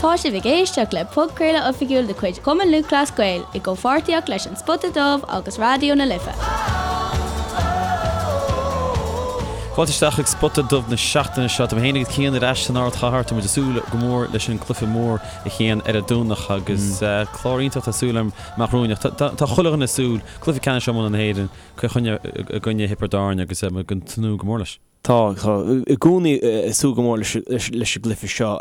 Tá sibh ag éisteacht le podchraoladh oifigiúil de chuid Chumann Lúthchleas Gael i gcomhpháirtíocht leis An Spota Dubh agus Raidió na Life. Fáilte isteach chuig Spota Dubh na seachtaine seo. Tá mé féin agus Cian ar ais san ardchathair. Tá muid ag súil go mór leis an gcluiche mór a Chian ar an Domhnach agus clár iontach tá súil agam amach romhainn. Ach tá chuile dhuine ag súil, cluiche ceannais iomána na hÉireann, Cill Chainnigh i gcoinne Thiobraid Árann agus muid ag tnúth go mór leis. Tá, tá i gcónaí ag súil go mór leis leis an gcluiche seo.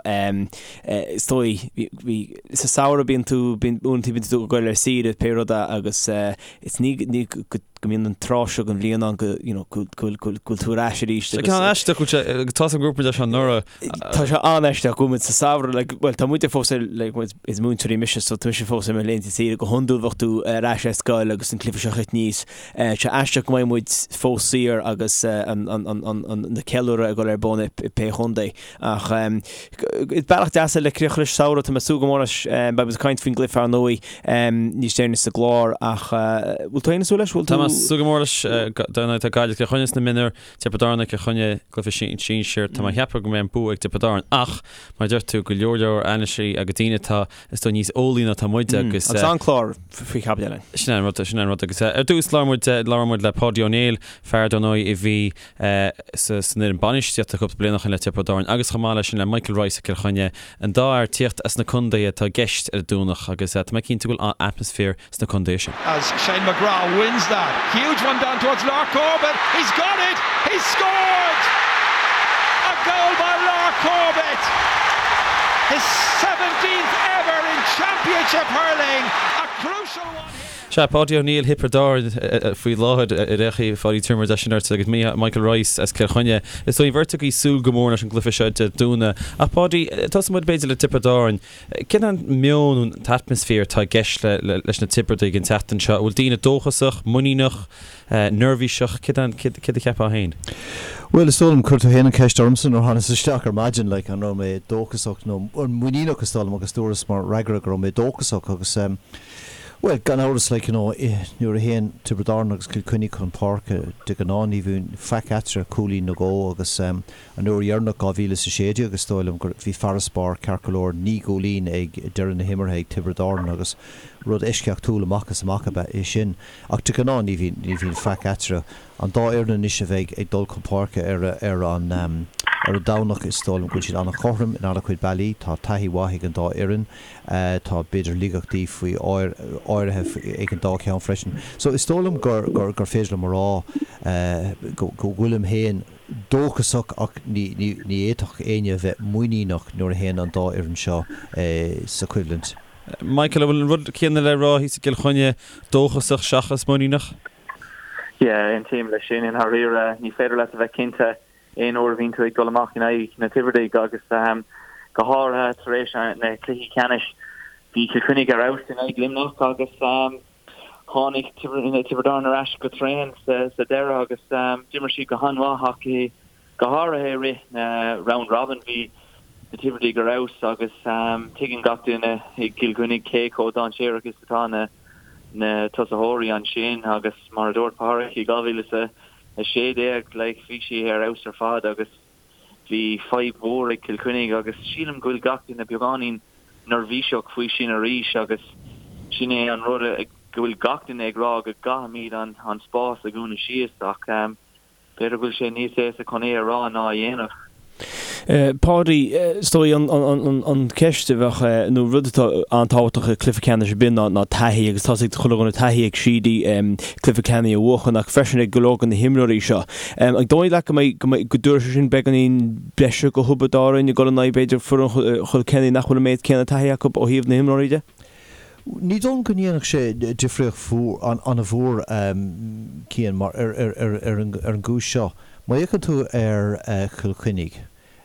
Is dóigh, bhí, sa samhradh bíonn tú, bíonn, uaireanta bíonn tú ag goil ar saoire pé rud é agus is ní, ní go mbíonn an tráth seo den bhliain ann go, you know, go bhfuil, go bhfuil tú ar ais arís agus. Tá aisteach go bhfuil sé, tá a fhios agam go raibh muid leis anuraidh. Tá sé an-aisteach go bhfuil muid sa samhradh, like, bhuel tá muide fós ar, like, muid, is múinteoirí mise so tá mise fós ar mo laethanta saoire, go hiondúil bheadh tú ar ais ar scoil agus an cluiche seo ag teacht aníos. Tá sé aisteach go mbeidh muid fós saor agus an, an, an, an, an, na ceiliúradh ag dul ar bun i, i pé chontae. Ach is bealach deas é le críoch leis an samhradh, tá mé ag súil go mór leis, beidh muid ag caint faoin gcluiche ar ndóigh níos deireanaí sa gclár ach bhfuil tú féin ag súil leis? Bhfuil tú? Tá mé ag súil go mór leis, dar ndóigh tá Gaillimh Cill Chainnigh sna mionúir, Tiobraid Árann Cill Chainnigh, cluiche sinsir. Tá mé ag ceapadh go mbeidh an bua ag Tiobraid Árann ach, mar a deir tú, go leor leor anailísí agus daoine atá, is dóigh, níos eolaí ná atá muide agus. Agus an-chlár faoi chaibidil againn. Sin é an rud, sin é an rud. Agus ar dtús labhair muid, labhair muid le Páidí Ó Néill, fear dar ndóigh a bhí sa san fhoireann bainistíochta cúpla bliain ó shin le Tiobraid Árann agus chomh maith leis sin le Michael Rice as Cill Chainnigh, an dá fhear ag tíocht as na contaetha atá i gceist ar an Domhnach agus tá mé cinnte go bhfuil an-atmaisféar sna contaetha sin. As Shane McGrath wins that huge one down towards Lar Corbett, he's got it! He's scored! A goal by Lar Corbett! His 17th ever in Championship hurling, a crucial one here. Sea, Páidí Ó Néill Thiobraid Árann faoi láthair ar aon chaoi, Pháidí tabharfaidh muid sin ort agus Michael Rice as Cill Chainnigh. Is dóigh an bheirt agaibh ag súil go mór leis an gcluiche seo Dé Domhnaigh. Ach Páidí, tosóidh muid b'fhéidir le Tiobraid Árann. Cén an meon nó an t-atmaisféar atá i gceist leis na Tiobradaigh an tseachtain seo? An bhfuil daoine dóchasach, muiníneach, neirbhíseach? Céard a cheapfá féin? Bhuel, is dóigh liom, chuir tú féin an cheist ormsa nuair a thánas isteach ar maidin, like, an raibh mé dóchasach nó muiníneach is dóigh liom agus dúras mar fhreagra go raibh mé dóchasach agus bhuel, gan amhras, like, you know, nuair a théann Tiobraid Árann agus Cill Chainnigh chun páirce, de ghnáth ní bhíonn faic eatarthu, cúilín nó dhó agus An uair dheireanach, 2016, is dóigh liom go bhí farasbarr ceart go leor, 9 gcúilín ag deireadh na himeartha ag Tiobraid Árann agus rud eisceachtúil amach is amach ab ea é sin. Ach de ghnáth ní bhíonn, ní bhíonn faic eatarthu. An dá fhoireann anois a bheidh ag dul chun páirce ar ar an ar an Domhnach, is dóigh liom go bhfuil siad an-chothrom in an-chuid bealaí. Tá taithí mhaith ag an dá fhoireann. Tá b'fhéidir laigeachtaí faoi áirithe ag an dá cheann freisin. So is dóigh liom gur gur gur féidir liom a rá go go bhfuilim féin, dóchasach ach ní fhéadfadh éinne a bheith muiníneach nuair a théann an dá fhoireann seo sa choimhlint. Michael, an bhfuil an rud céanna le rá thíos i gCill Chainnigh, dóchasach seachas muiníneach? Yeah, aontaím leis sin i ndáiríre. Ní féidir leat a bheith cinnte aon uair a bhíonn tú ag dul amach in aghaidh na Tiobradaigh agus go háirithe tar éis na cluichí ceannais. Bhí Cill Chainnigh ar fheabhas in aghaidh Luimneach agus Tháinig Tiobraid Árann ar ais go tréan sa deireadh agus d'imir siad go han-mhaith ach go háirithe i rith na round robin bhí na Tiobradaigh ar fheabhas agus tuigeann gach duine i gCill Chainnigh cé chomh dainséarach is atá na na tosaitheoirí ansin agus mar a dúirt Pádraic i 2016 like bhí sé ar fheabhas ar fad agus Bhí fadhb mhór ag Cill Chainnigh agus sílim go bhfuil gach duine beagáinín neirbhíseach faoi sin arís agus sin é an rud go bhfuil gach duine ag rá go gcaithfimid an spás a dhúnadh síos ach b'fhéidir go bhfuil sé níos éasca chun é a rá ná a dhéanamh. Páidí, is dóigh an cheist a bheadh, nó rud atá an-tábhachtach i cluiche ceannais ar bith ná taithí agus tá's ag chuile dhuine taithí ag Sheedy cluiche ceannais a bhuachan ach freisin ag go leor de na himreoirí seo. An dóigh leat go mbeidh, go mbeidh, go dtabharfaidh sé sin beagáinín breise do Thiobraid Árann ag dul in aghaidh b'fhéidir foireann Chill Chainnigh nach bhfuil an méid céanna taithí acu ó thaobh na himreoirí de? Ní dóigh liom go ndéanfadh sé difríocht an-mhór, Cian, mar ar an gcúis seo. Má fhéachann tú ar Chill Chainnigh,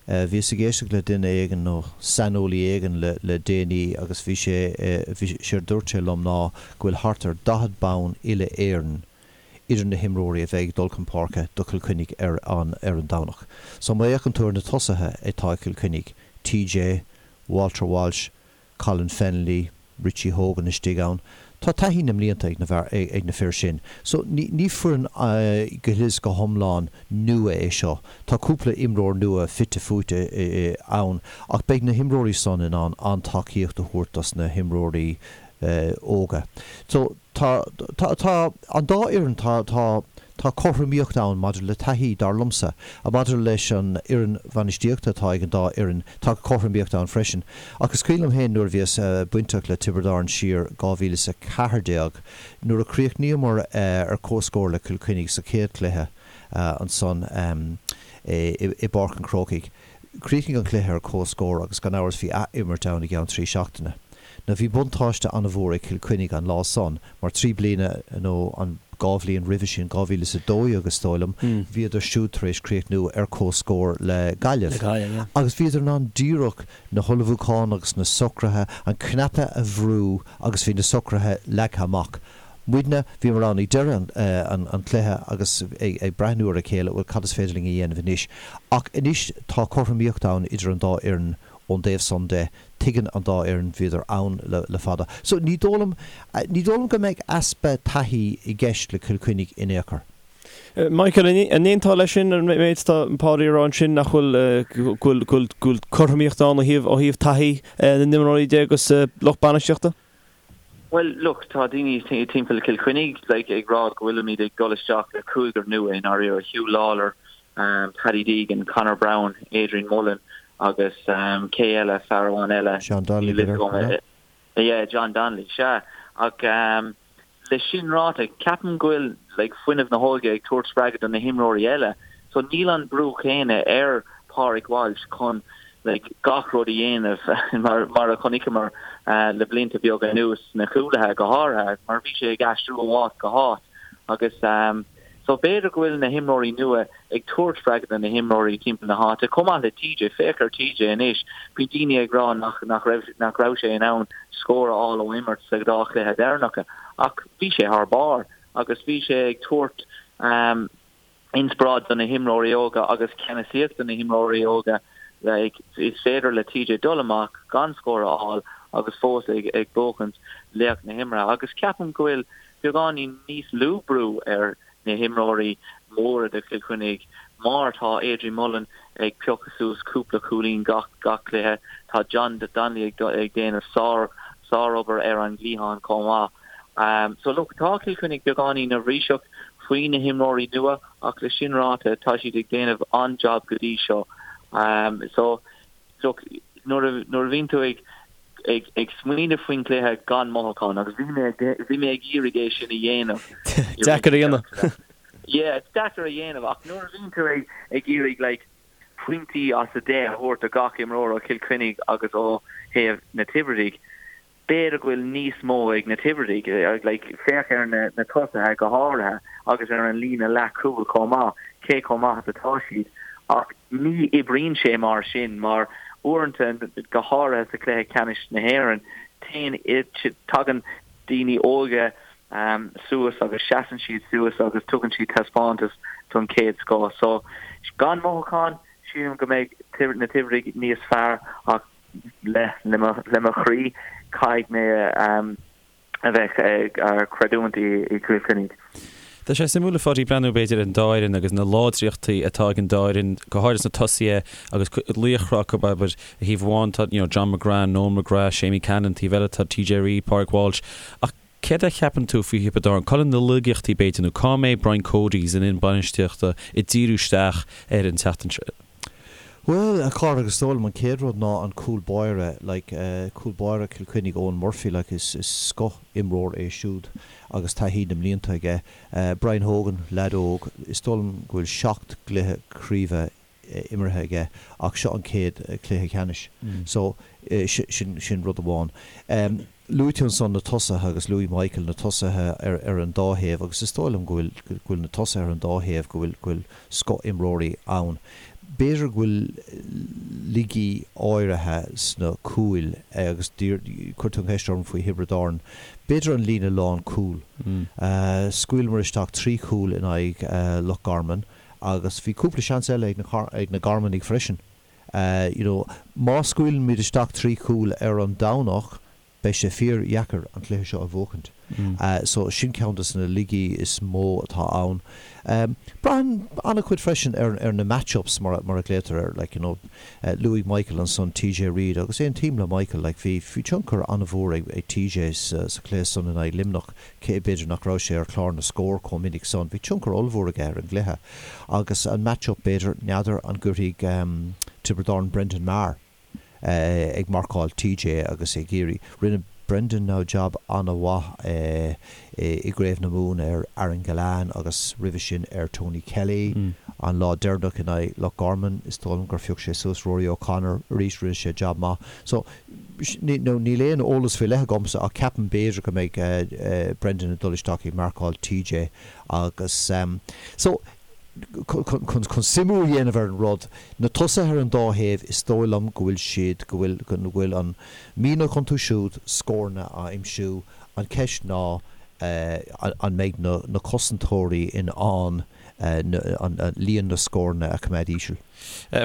bhíos ag éisteacht le duine éigin nó saineolaí éigin le déanaí agus bhí sé, séard a dúirt sé liom ná go bhfuil thart ar 40 bonn uile-Éireann idir na himreoirí a bheidh ag dul chun páirce do Chill Chainnigh ar an ar an Domhnach. So má fhéachann tú ar na tosaithe atá ag Cill Chainnigh, TJ, Walter Walsh, Colin Fennelly, Richie Hogan istigh ann. Tá taithí na mblianta ag na ag na fir sin. So ní ní foireann go huile is go hiomlán nua é seo. Tá cúpla imreoir nua fite fuaite ann ach beidh na himreoirí san in ann an-tacaíocht a thabhairt dos na himreoirí óga. So tá tá tá an dá fhoireann tá tá tá cothromaíocht ann maidir le taithí, dar liomsa. Maidir leis an fhoireann bhainistíochta atá ag an dá fhoireann, tá cothromaíocht ann freisin. Ach is cuimhin liom féin nuair a bhíos bainteach le Tiobraid Árann siar 2014, nuair a chríochnaíomar ar comhscór le Cill Chainnigh sa chéad chluiche ansan i bPáirc an Chrócaigh. Chríochnaigh an cluiche ar comhscór agus gan amhras bhí ath-imirt ann i gceann 3 seachtaine. Now bhí buntáiste an-mhór ag Cill Chainnigh an lá san mar 3 bliana nó an 2 bhliain roimhe sin, 2012 is dóigh liom, bhíodar siúd tar éis críochnú ar comhscór le Gaillimh. Agus bhíodar in ann díreach na hullmhúcháin agus na socruithe, an cnaipe a bhrú agus bhí na socruithe leagtha amach. Muidne, bhíomar ann ag deireadh an chluiche agus ag breathnú ar a chéile, bhuel cad is féidir linn a dhéanamh anois? Ach anois tá cothromaíocht ann idir an dá fhoireann ón dtaobh san de, tuigeann an dá fhoireann, bhíodar ann le fada. So ní dóigh liom, ní dóigh liom go mbeidh easpa taithí i gceist le Cill Chainnigh in aon chor. Michael, an aontófá leis sin, an méid atá Páidí a rá ansin, nach bhfuil, go bhfuil, go bhfuil cothromaíocht ann ó thaobh, ó thaobh taithí na n-imreoirí de agus lucht bainistíochta? Bhuel, look, tá daoine timpeall Cill Chainnigh like, ag rá go bhfuilimid ag dul isteach le cúigear nua i ndáiríre, Huw Lawlor, Paddy Deegan, Conor Browne, Adrian Mullen agus cé eile, fear amháin eile. John Donnelly, b'fhéidir? Yeah, John Donnelly, sea. Ach le sin ráite, ceapaim go bhfuil like, fuinneamh na hóige ag tabhairt spreagadh do na himreoirí eile. So níl an brú céanna ar Pádraig Walsh chun like, gach rud a dhéanamh mar, mar a chonaiceamar le blianta beaga anuas sna cúlaithe go háirithe, mar bhí sé ag aistriú ó áit go háit. Agus so b'fhéidir go bhfuil na himreoirí nua ag tabhairt spreagadh do na himreoirí timpeall na háite, chomh maith le TJ. Féach ar TJ anois, bhí daoine ag rá nach, nach raibh, nach raibh sé in ann scór a fháil ó imirt sa dá chluiche deireanacha, ach bhí sé thar barr agus bhí sé ag tabhairt inspioráid do na himreoirí óga agus ceannasaíocht do na himreoirí óga. Like, is féidir le TJ dul amach gan scór a fháil agus fós ag, ag buachaint laoch na himeartha agus ceapaim go bhfuil beagáinín níos lú brú ar na himreoirí móra de Chill Chainnigh mar tá Adrian Mullen ag piocadh suas cúpla cúilín gach gach cluiche, tá John Donnelly ag ag déanamh sár sárobair ar an gcliathán chomh maith. So look, tá Cill Chainnigh beagáinín neirbhíseach faoi na himreoirí nua ach le sin ráite tá siad ag déanamh an-jab go dtí seo. So look, nuair a nuair a bhíonn tú ag ag ag smaoineamh faoin gcluiche gan mothúchán agus bhí mé bhí mé ag iarraidh é sin a dhéanamh. Deacair a dhéanamh. Yeah, it's deacair a dhéanamh ach nuair a bhíonn tú ag ag iarraidh like pointí as 10 a thabhairt do gach imreoir ó Chill Chainnigh agus ó thaobh na Tiobradaigh, B'fhéidir go bhfuil níos mó ag na Tiobradaigh, like, féach ar na na tosaithe go háirithe agus ar an líne leathchúil chomh maith, cé chomh maith is atá siad. Ach ní oibríonn sé mar sin mar uaireanta, go háirithe sa chluiche ceannais na hÉireann, téann, tagann daoine óga suas agus seasann siad suas agus tugann siad taispeántas don chéad scoth. So, gan mothúchán, sílim go mbeidh na Tiobradaigh níos fearr ach le le mo chroí, caithfidh mé a bheith ag creidiúint i gCill Chainnigh. Tá sé suimiúil a Pháidí breathnú b'fhéidir ar an dá fhoireann agus na láidreachtaí atá ag an dá fhoireann, go háirithe sna tosaithe agus laochra acu, abair, ar thaobh amháin tá you know John McGrath, Noel McGrath, Seamie Callanan, taobh eile tá TJ Reid, Pádraig Walsh. Ach céard a cheapann tú faoi Thiobraid Árann? Cá bhfuil na laigeachtaí b'fhéidir nó cá mbeidh Brian Cody san fhoireann bainistíochta ag díriú isteach ar an tseachtain seo? Bhuel, a chara, is dóigh liom an chéad rud ná an cúl báire, like, cúl báire Chill Chainnigh, Eoin Murphy, like, is, is scoth imreoir é siúd agus taithí na mblianta aige. Brian Hogan, leaid óg, is dóigh liom go bhfuil seacht gcluiche craoibhe imeartha aige ach seo an chéad chluiche ceannais. So, sin, sin rud amháin. Luaigh tú ansan na tosaithe agus luaigh Michael na tosaithe ar ar an dá thaobh agus is dóigh liom go bhfuil go bhfuil na tosaithe ar an dá thaobh, go bhfuil go bhfuil scoth-imreoirí ann. B'fhéidir go bhfuil laigí áirithe sna cúil agus chuir tú an cheist orm faoi Thiobraid Árann. B'fhéidir an líne lánchúil. Scaoileamar isteach 3 chúl in aghaidh Loch Garman agus bhí cúpla seans eile ag na ag na Garmanaigh freisin. You know, má scaoileann muid isteach 3 chúl ar an Domhnach, Beidh sé fíor-dheacair an cluiche seo a bhuachaint. So sin ceann de na laigí is mó atá ann. Braitheann an-chuid freisin ar ar na match-ups mar mar a ghlaotar air, like you know. Luaigh Michael ansan TJ Reid agus aontaím le Michael, like bhí bhí tionchar an-mhór ag ag TJ sa sa chluiche san in aghaidh Luimneach, cé b'fhéidir nach raibh sé ar chlár na scór chomh minic san, bhí tionchar ollmhór aige ar an gcluiche. Agus an match-up b'fhéidir, n'fheadar an gcuirfidh Tiobraid Árann Brendan Maher ag marcáil TJ agus ag iarraidh. Rinne Brendan now jab an-mhaith i gCraobh na Mumhan ar Aaron Gillane agus roimhe sin ar Tony Kelly. An lá deireanach in aghaidh Loch Garman is dóigh liom gur phioc sé suas Rory O'Connor arís, rinne sé jab maith. So now níl aon eolas faoi leith agamsa ach ceapaim b'fhéidir go mbeidh Brendan ag dul isteach ag marcáil TJ agus so chun suimiú a dhéanamh ar an rud, na tosaithe ar an dá thaobh, is dóigh liom go bhfuil siad, go bhfuil, go bhfuil an mianach iontu siúd scóranna a aimsiú. An cheist ná an mbeidh na na cosantóirí in ann líon na scóranna a choimeád íseal.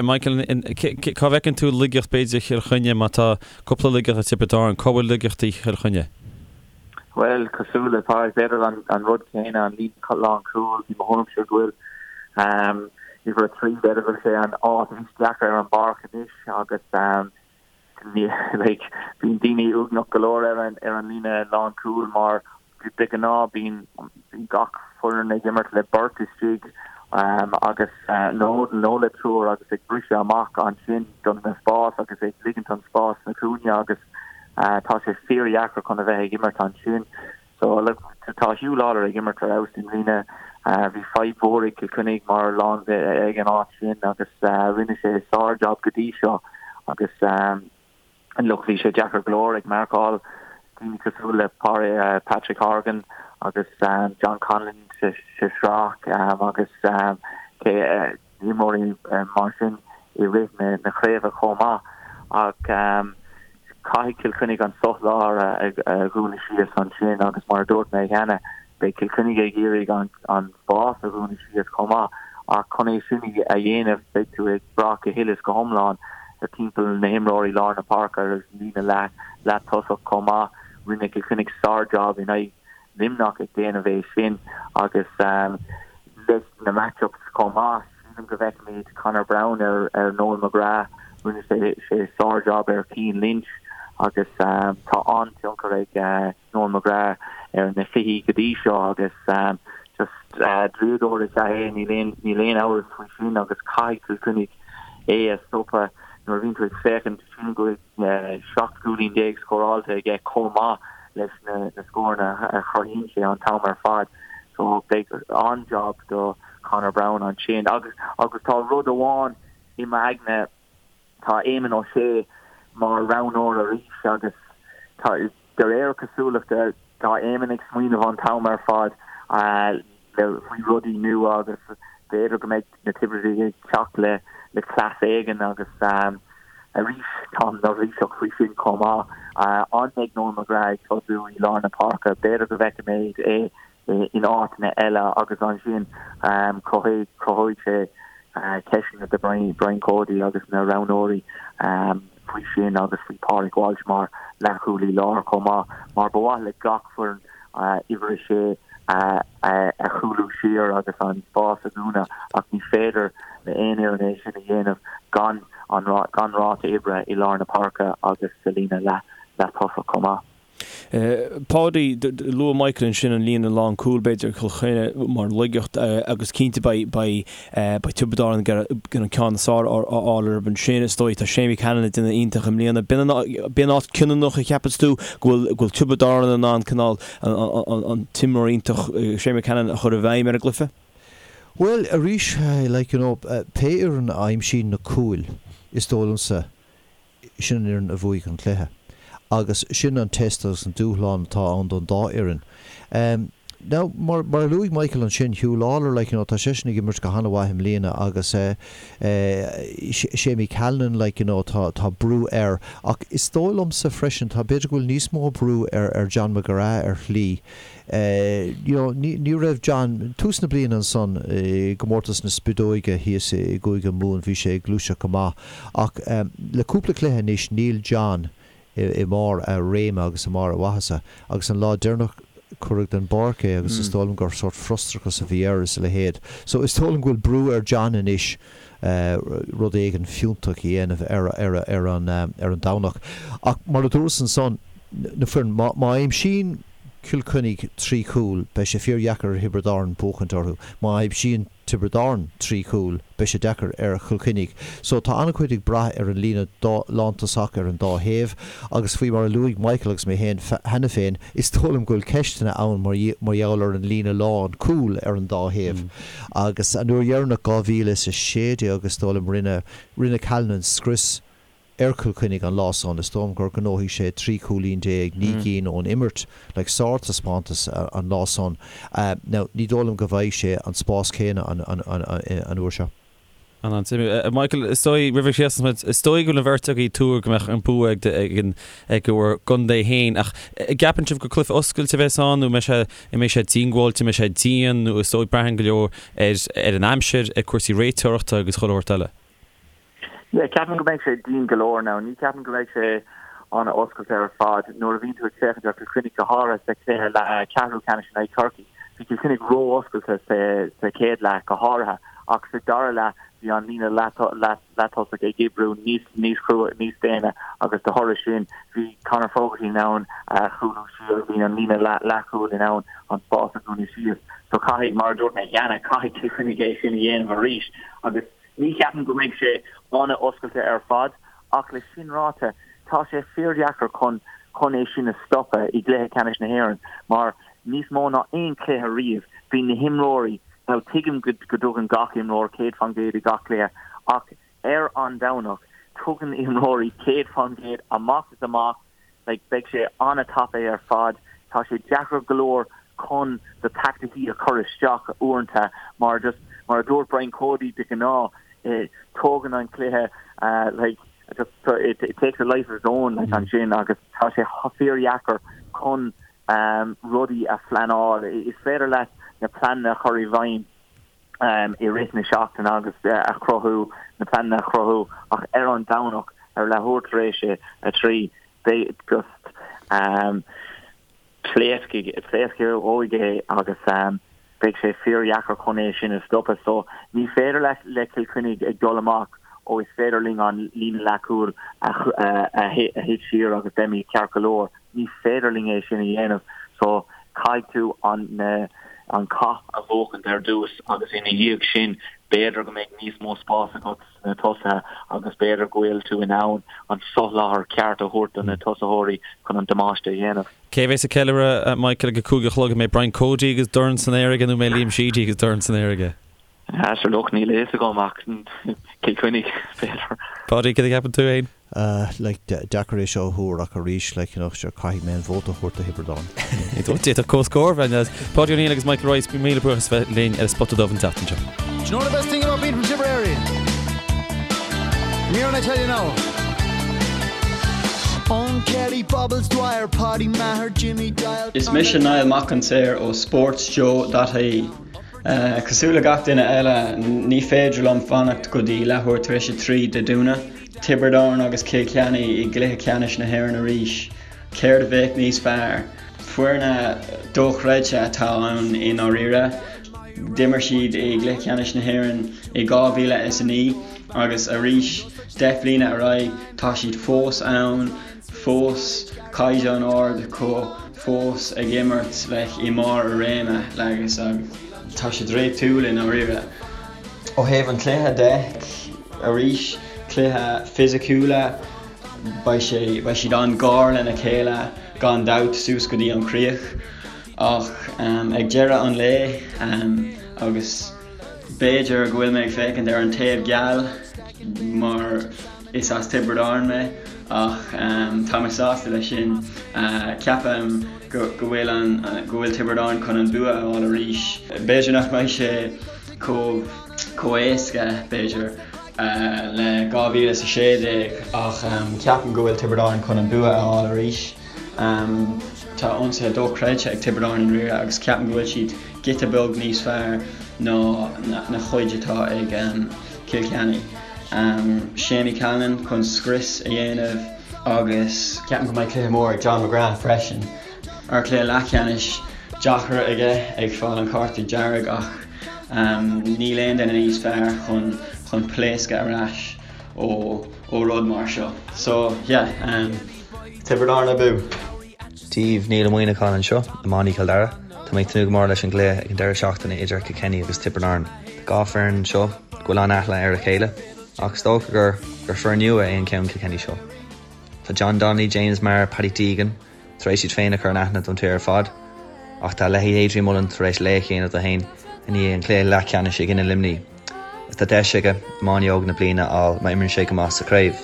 Michael, cá bhfeiceann tú laigeacht b'fhéidir Chill Chainnigh má tá cúpla laigeacht ag Tiobraid Árann, cá bhfuil laigeachtaí Chill Chainnigh? Bhuel, cosúil le Pádraig, b'fhéidir an rud céanna, an líne lánchúil, i mo thuairimse go bhfuil uimhir 3, b'fhéidir go bhfuil sé an áit is deacra ar an bpáirc anois agus like, bíonn daoine uaigneach go leor ar an ar an líne lánchúil mar de ghnáth bíonn gach foireann ag imirt le beirt istigh agus nó nó le triúr agus ag briseadh amach ansin don na spás agus ag ligint an spás sna cúinne agus Tá sé fíordheacair chun a bheith ag imirt ansin. So, look, tá Huw Lawlor ag imirt ar fheabhas i mbliana. Bhí fadhb mhór ag Cill Chainnigh mar lán ag an áit sin agus rinne sé sár-jab go dtí seo agus look, bhí sé deacair go leor ag marcáil daoine cosúil le Patrick Horgan agus John Conlon sa sraith agus imreoirí mar sin i rith na craoibhe chomh maith ach caithfidh Cill Chainnigh an sothlár a dhúnadh síos ansin agus mar a dúirt mé cheana, beidh Cill Chainnigh ag iarraidh an spás a dhúnadh síos chomh maith ach chun é sin a dhéanamh beidh tú ag brath go huile is go hiomlán ar timpeall na himreoirí lár na páirce agus líne leath tosach chomh maith. Rinne Cill Chainnigh sár-jab in aghaidh Luimneach ag déanamh é sin agus leis na match-ups chomh maith, sílim go bhfeicfimid Conor Browne ar ar Noel McGrath, rinne sé sé sár-jab ar Cian Lynch agus tá an-tionchar ag Noel McGrath ar na cluichí go dtí seo agus just draíodóir is ea é, níl aon níl aon amhras faoi sin agus caithfidh Cill Chainnigh é a stopadh nuair a bhíonn tú ag féachaint, sílim go bhfuil 17 cúilín scóráilte aige chomh maith leis na scóranna a chruthaíonn sé an t-am ar fad. So beidh an-jab do Conor Browne ansin. Agus agus tá rud amháin i m'aigne, tá Éamonn O'Shea mar roghnóir arís agus tá de réir cosúlachta tá Éamonn ag smaoineamh an t-am ar fad faoi rudaí nua agus b'fhéidir go mbeidh na Tiobradaigh ag teacht le le cleas éigin agus arís táim neirbhíseach faoi sin chomh maith. An mbeidh Noel McGrath ag tosú i lár na páirce? B'fhéidir go bhfeicfimid é in áiteanna eile agus ansin cruthóidh sé ceisteanna do Brian Cody agus na roghnóirí faoi sin agus faoi Pádraig Walsh mar leathchúlaí láir chomh maith mar ba mhaith le gach foireann uimhir 6 a chúlú siar agus an spás a dhúnadh ach ní féidir le aon fhoireann é sin a dhéanamh gan an gan ráta oibre i lár na páirce agus sa líne leath leath-tosach chomh maith. Páidí, luaigh Michael ansin an líne lánchúil, b'fhéidir, Cill Chainnigh mar laigeacht agus cinnte beidh beidh beidh Tiobraid Árann ag iarraidh an ceann is fearr a fháil orthu ansin. Is dóigh tá Séimí Callanan ag déanamh iontach i mbliana. B'in an b'in áit cinniúnach a cheapas tú go bhfuil go bhfuil Tiobraid Árann in ann cineál an t-imreoir iontach Séimí Callanan a chur i bhfeidhm ar an gcluiche? Bhuel, arís, like you know, pé fhoireann a aimsíonn na cúil, is dóigh liomsa, sin an fhoireann a bhuafaidh an cluiche. Agus sin an test agus an dúshlán atá ann don dá fhoireann. Now, mar, mar a luaigh Michael ansin, Huw Lawlor, like, you know, tá seisean ag imirt go han-mhaith i mbliana agus eh, eh, Séimí Callanan, like, you know, tá, tá brú air. Ach is dóigh liomsa freisin, tá, b'fhéidir go bhfuil níos mó brú ar, ar John McGrath ar shlí. You know, ní, ní raibh John, tús na bliana ansan i gcomórtas na Spideoige thíos i gCúige Mumhan, bhí sé ag gluaiseacht go maith ach le cúpla cluiche anois níl John. i mbarr a réime agus i mbarr a mhaitheasa. Agus an lá deireanach cuireadh den bpáirc é agus is dóigh liom gur sórt frustrachas a bhí air is a leithéid. So is dóigh liom go bhfuil brú ar John anois rud éigin fiúntach a dhéanamh ar ar ar an ar an Domhnach. Ach mar a dúras ansan, na foireann, má má aimsíonn Cill Chainnigh 3 chúl beidh sé fíor-dheacair ar Thiobraid Árann buachaint orthu. Má aimsíonn Tiobraid Árann 3 chúl, beidh sé deacair ar Chill Chainnigh. So tá an-chuid ag brath ar an líne lántosach ar an dá thaobh agus faoi mar a luaigh Michael agus mé féin cheana féin, is dóigh liom go bhfuil ceisteanna ann mar gheall ar an líne lán cúl ar an dá thaobh. Agus an uair dheireanach, 2016 is dóigh liom, rinne rinne Callanan scrios ar Chill Chainnigh an lá san, is dóigh liom gur ghnóthaigh sé 13 cúilín, 9 gcinn ón imirt, like sár-taispeántas an lá san. Now, ní dóigh liom go bhfaighidh sé an spás céanna an uair seo. An-suimiúil. Michael, is dóigh, roimh a chríochnós muid, is dóigh go bhfuil an bheirt agaibh ag tuar go mbeadh an bua ag ag bhur gcontae féin, ach an gceapann sibh gur cluiche oscailte a bheas ann nó an mbeidh sé, an mbeidh sé díongbháilte, an mbeidh sé dian nó is dóigh braitheann go leor ar ar an aimsir, ar cúrsaí réiteoireachta agus chuile shórt eile? Yeah, ceapaim go mbeidh sé dian go leor now. Ní ceapaim go mbeidh sé an-oscailte ar fad. Nuair a bhíonn tú ag féachaint ar Chill Chainnigh go háirithe sa chluiche ceathrú ceannais in aghaidh Chorcaí, bhí Cill Chainnigh ró-oscailte sa chéad leath go háirithe ach sa dara leath bhí an líne leath-tosaigh ag oibriú níos níos crua, níos déine agus de thoradh sin bhí Conor Fogarty in ann cúlú siar, bhí an líne leathchúil in ann an spás a dhúnadh síos. So caithfidh, mar a dúirt mé cheana, caithfidh Cill Chainnigh é sin a dhéanamh arís agus Ní cheapaim go mbeidh sé an-oscailte ar fad, ach le sin ráite, tá sé fíordheacair chun chun é sin a stopadh i gcluiche ceannais na hÉireann mar níos mó ná aon chluiche riamh, bíonn na himreoirí, now tuigim go go dtugann gach imreoir 100% i gach cluiche ach ar an Domhnach tugann imreoirí 100% amach is amach, like beidh sé an-tapaidh ar fad. Tá sé deacair go leor chun do taicticí a chur isteach uaireanta mar just mar a dúirt Brian Cody de ghnáth eh, tógann an cluiche uh, like just it, it takes a life of its own like ansin agus tá sé fíordheacair chun um, rudaí a phleanáil. Is féidir leat na pleananna a chur i bhfeidhm i rith na seachtaine agus a chruthú, na pleananna a chruthú ach ar an Domhnach ar leathuair tar éis a 3 beidh just pléascfaidh, pléascfaidh é agus beidh sé fíordheacair chun é sin a stopadh. So ní féidir le le Cill Chainnigh ag dul amach ó is féidir linn an líne leathchúil a a thit siar agus beimid ceart go leor. Ní féidir linn é sin a dhéanamh so caithfidh tú an na an cath a bhuachaint ar dtús agus ina dhiaidh sin b'fhéidir go mbeidh níos mó spás agat sna tosaithe agus b'fhéidir go bhfuil tú in ann an soláthar ceart a thabhairt do na tosaitheoirí chun an damáiste a dhéanamh. Cé a bheas ag ceiliúradh, Michael, ag a 5 a chlog? An mbeidh Brian Cody agus dorn san aer aige nó an mbeidh Liam Sheedy agus dorn san aer aige? Sure look, níl a fhios agam ach Cill Chainnigh, b'fhéidir. Páidí, cad a cheapann tú fhéin? Like, deacair é seo a thuar ach arís, like, you know, sure, caithfidh mé an vóta a thabhairt do Thiobraid Árann. D'fhéadfadh comhscór a bheith ann. Páidí Ó Neill agus Michael Rice, míle buíochas as bheith linn ar an Spota Dubh an tseachtain seo. Do you know the best thing about being from Tipperary? Come here and I tell you now. Eoin Kelly, Bobbles Dwyer, Paddy Maher, Jimmy Doyle. Is mise Niall Mac an tSaoir ó SportsJoe.ie. Cosúil le gach duine eile, ní féidir liom fanacht go dtí leathuair tar éis a 3 Dé Domhnaigh. Tiobraid Árann agus Cill Chainnigh i gcluiche ceannais na hÉireann arís. Céard a bheadh níos fearr? Foirne dochreidte atá ann i ndáiríre. D'imir siad i gcluiche ceannais na hÉireann i 2009 agus arís 10 bliana ar aghaidh tá siad fós ann, fós caighdeán ard acu, fós ag imirt like i mbarr a réime agus tá sé draíochtúil i ndáiríre. Ó thaobh an chluiche de, arís, cluiche fisiciúla, beidh sé, beidh siad an-ghar lena chéile gan dabht suas go dtí an chríoch ach ag deireadh an lae agus b'fhéidir go bhfuil mé ag féachaint ar an taobh geal mar is as Tiobraid Árann mé ach tá mé sásta leis sin. Ceapaim go bhfuil an go bhfuil Tiobraid Árann chun an bua a fháil arís. B'fhéidir nach mbeidh sé chomh chomh éasca b'fhéidir le 2016 ach ceapaim go bhfuil Tiobraid Árann chun an bua a fháil arís. Tá ionsaithe dochreidte ag Tiobraid Árann i ndáiríre agus ceapaim go bhfuil siad giota beag níos fearr ná na chuid atá ag Cill Chainnigh. Séamie Callanan chun scrios a dhéanamh. Agus ceapaim go mbeidh cluiche mór ag John McGrath freisin. Ar cluiche leathcheannais deacair aige ag fáil an cárta dearg ach níl aon duine níos fearr chun chun pléascadh ar ais ó ó rud mar seo. So yeah, Tiobraid Árann abú! Dia daoibh, Niall Ó Muíneacháin anseo, iománaí Chill Dara. Tá mé ag tnúth go mór leis an gcluiche ag an deireadh seachtaine idir Kilkenny agus Tiobraid Árann. Tá 2 foireann anseo go bhfuil an-aithne ar a chéile, ach is dócha gur gur foireann nua é an ceann Kilkenny seo. Tá John Donnelly, James Maher, Paddy Deegan tar éis iad féin a chur in aithne don tír ar fad, ach tá leithéid Adrian Mullen tar éis laoch a dhéanamh de féin i ndiaidh an chluiche leathcheannais i gcoinne Luimnigh agus tá deis aige Iománaí Óg na Bliana a fháil má imríonn sé go maith sa chraobh.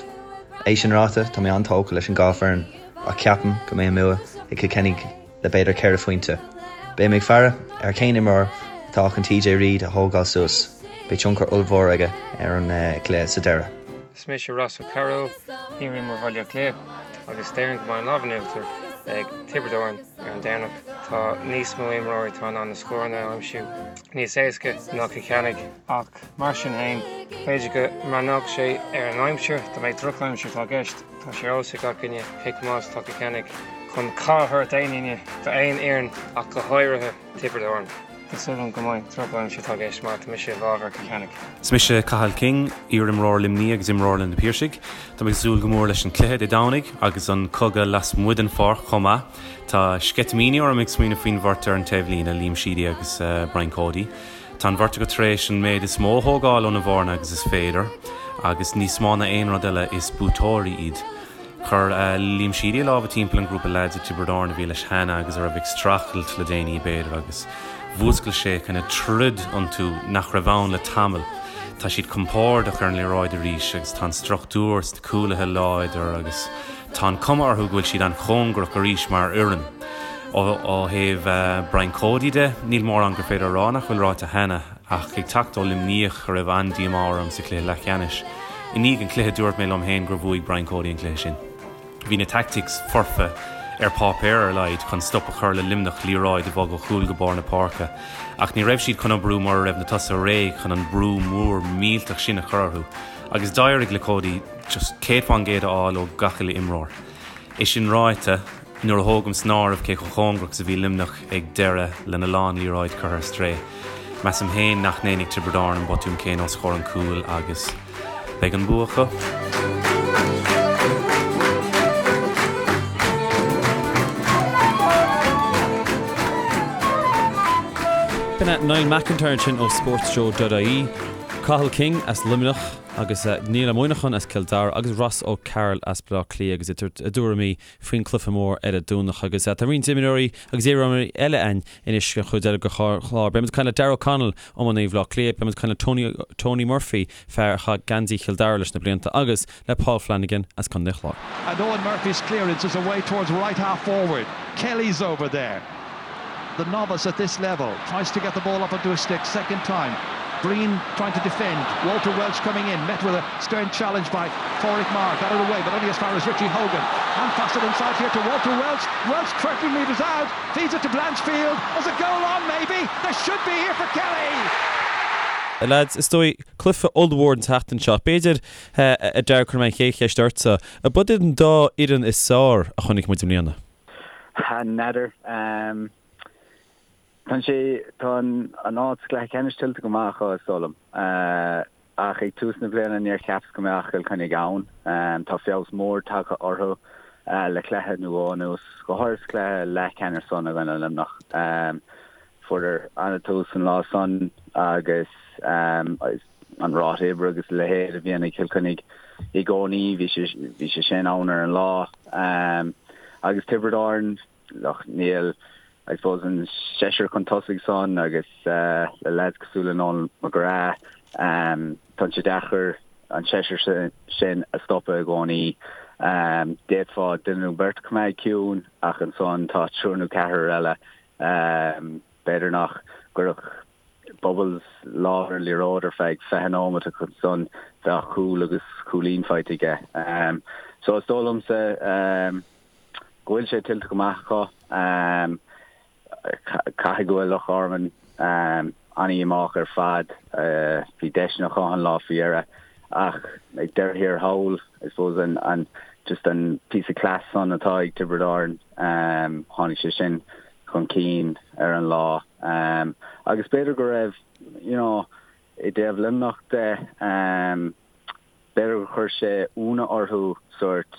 É sin ráite, tá mé an-tógtha leis an dhá foireann ach ceapaim go mbeidh an bua ag Kilkenny le b'fhéidir 4 phointe. Beidh mé ag faire ar cén imreoir atá chun TJ Reid a thógáil suas, beidh tionchar ollmhór aige ar an gcluiche sa deireadh. Is mise Ross O'Carroll, iarimreoir Bhaile Átha Cliath, agus déarfainn go mbeidh an lámh in uachtar ag Tiobraid Árann ar an Domhnach. Tá níos mó imreoirí atá in ann na scóranna a aimsiú níos éasca ná Cill Chainnigh, ach mar sin féin, b'fhéidir go mbreathnódh sé ar an aimsir, dá mbeadh drochaimsir atá i gceist, tá sé ar eolas ag gach duine cé chomh maith is atá Cill Chainnigh chun cath a thabhairt d'aon duine, d'aon fhoireann ach go háirithe Tiobraid Árann. Tá súil agam go mbeidh drochaimsir atá i gceist mar tá mise i bhfabhar Cill Chainnigh. Is mise Cathal King, iar-imreoir Luimní agus imreoir le Na Piarsaigh. Tá mé ag súil go mór leis an cluiche Dé Domhnaigh agus an cogadh lasmuigh den pháirc chomh maith. Tá sceitimíní orm ag smaoineamh faoin bheirt ar an taobhlíne, Liam Sheedy agus Brian Cody. Tá an bheirt acu tar éis an méid is mó a thógáil óna bhfoirne agus is féidir agus níos mó ná aon rud eile is buaiteoirí iad. Chuir Liam Sheedy a lámha timpeall an grúpa leaids i dTiobraid Árann a bhí leis cheana agus a raibh ag streachailt le déanaí, b'fhéidir, agus mhúscail sé kind of troid iontu nach raibh ann le tamall. Tá siad compordach ar an liathróid arís agus tá an struchtúr sna cúlaithe láidir agus tá an cuma orthu go bhfuil siad an-chóngarach arís mar fhoireann. Ó thaobh Brian Cody de, níl mórán gur féidir a rá nach bhfuil ráite cheana. Ach ag teacht ó Luimneach, a raibh an-díomá orm sa chluiche leathcheannais, i ndiaidh an chluiche dúirt mé liom féin gur bhuaigh Brian Cody an cluiche sin. Bhí na tactics foirfe, ar páipéar ar a laghad, chun stop a chur le Luimneach liathróid a bhogadh ó chúl go barr na páirce. Ach ní raibh siad chun oibriú mura raibh na tosaithe réidh chun an brú mór millteach sin a chur orthu. Agus d'éirigh le Cody just 100% a fháil ó gach uile imreoir. É sin ráite, nuair a thógaim san áireamh cé chomh cóngarach is a bhí Luimneach ag deireadh lena lán liathróid curtha ar strae, measaim féin nach ndéanfaidh Tiobraid Árann an botún céanna os comhair an chúil agus beidh an bua acu. B'in é Niall McIntyre ansin ó SportsJoe.ie, Cathal King as Luimneach, Agus Niall Ó Muineacháin as Cill Dara agus Ross O'Carroll as Baile Átha Cliath agus iad ag tabhairt a dtuairimí faoin cluiche mór ar an Domhnach. Agus tá roinnt imreoirí agus iarimreoirí eile againn anois don chuid eile den chlár. Beidh muid ag caint le Darragh O'Connell, iománaí Bhaile Átha Cliath, beidh muid ag caint le Tony Tony Murphy, fear a chaith geansaí Chill Dara leis na blianta, agus le Paul Flanagan as Contae an Chláir. And Eoin Murphy's clearance is away towards right half forward. Kelly's over there. The novice at this level tries to get the ball up onto his stick second time. Breen trying to defend. Walter Welch coming in, met with a stern challenge by Pauric Maher. Got it away, but only as far as Richie Hogan. And pass it inside here to Walter Welch. Welch 30 metres out, feeds it to Blanchfield. There's a goal on, maybe. There should be here for Kelly. Lads, is dóigh, cluiche ollmhór an tseachtain seo. B'fhéidir, a Darragh, cuirfidh mé an chéad cheist ortsa. Ab iad an dá fhoireann is fearr a chonaic muid i mbliana? N'fheadar. Tá sé, tá an áit sa gcluiche ceannais tuillte go maith acu, is dóigh liom. Ach ag tús na bliana níor cheapas go mbeadh Cill Chainnigh ann. Tá feabhas mór tagtha orthu le cluiche nó dhó anuas, go háirithe sa chluiche leathcheannais san i gcoinne Luimneach. Fuaireadar an-tús an lá san agus an ráta oibre agus a leithéid a bhíonn ag Cill Chainnigh i gcónaí, bhí sé, bhí sé sin ann ar an lá. Agus Tiobraid Árann, look, níl, I suppose, an seisear chun tosaigh san agus le leaids cosúil le Noel McGrath, tá sé deacair an seisear sin a stopadh i gcónaí. D'fhéadfá duine nó beirt a choimeád ciúin ach ansan tá triúr nó ceathrar eile B'fhéidir nach gcuirfeadh Bubbles lámh ar an liathróid ar feadh 20 nóiméad ach ansan bheadh cúl agus cúilín faighte aige. So is dóigh liomsa go bhfuil sé tuillte go maith acu. Caithfidh go bhfuil Loch Garman an-dhíomách ar fad. Bhí deiseanna acu an lá faoi dheireadh ach ag deireadh thiar thall, I suppose, an. Just an píosa cleas san atá ag Tiobraid Árann, tháinig sé sin chun cinn ar an lá. Agus b'fhéidir go raibh, you know, i dtaobh Luimneach de, b'fhéidir gur chuir sé ionadh orthu sórt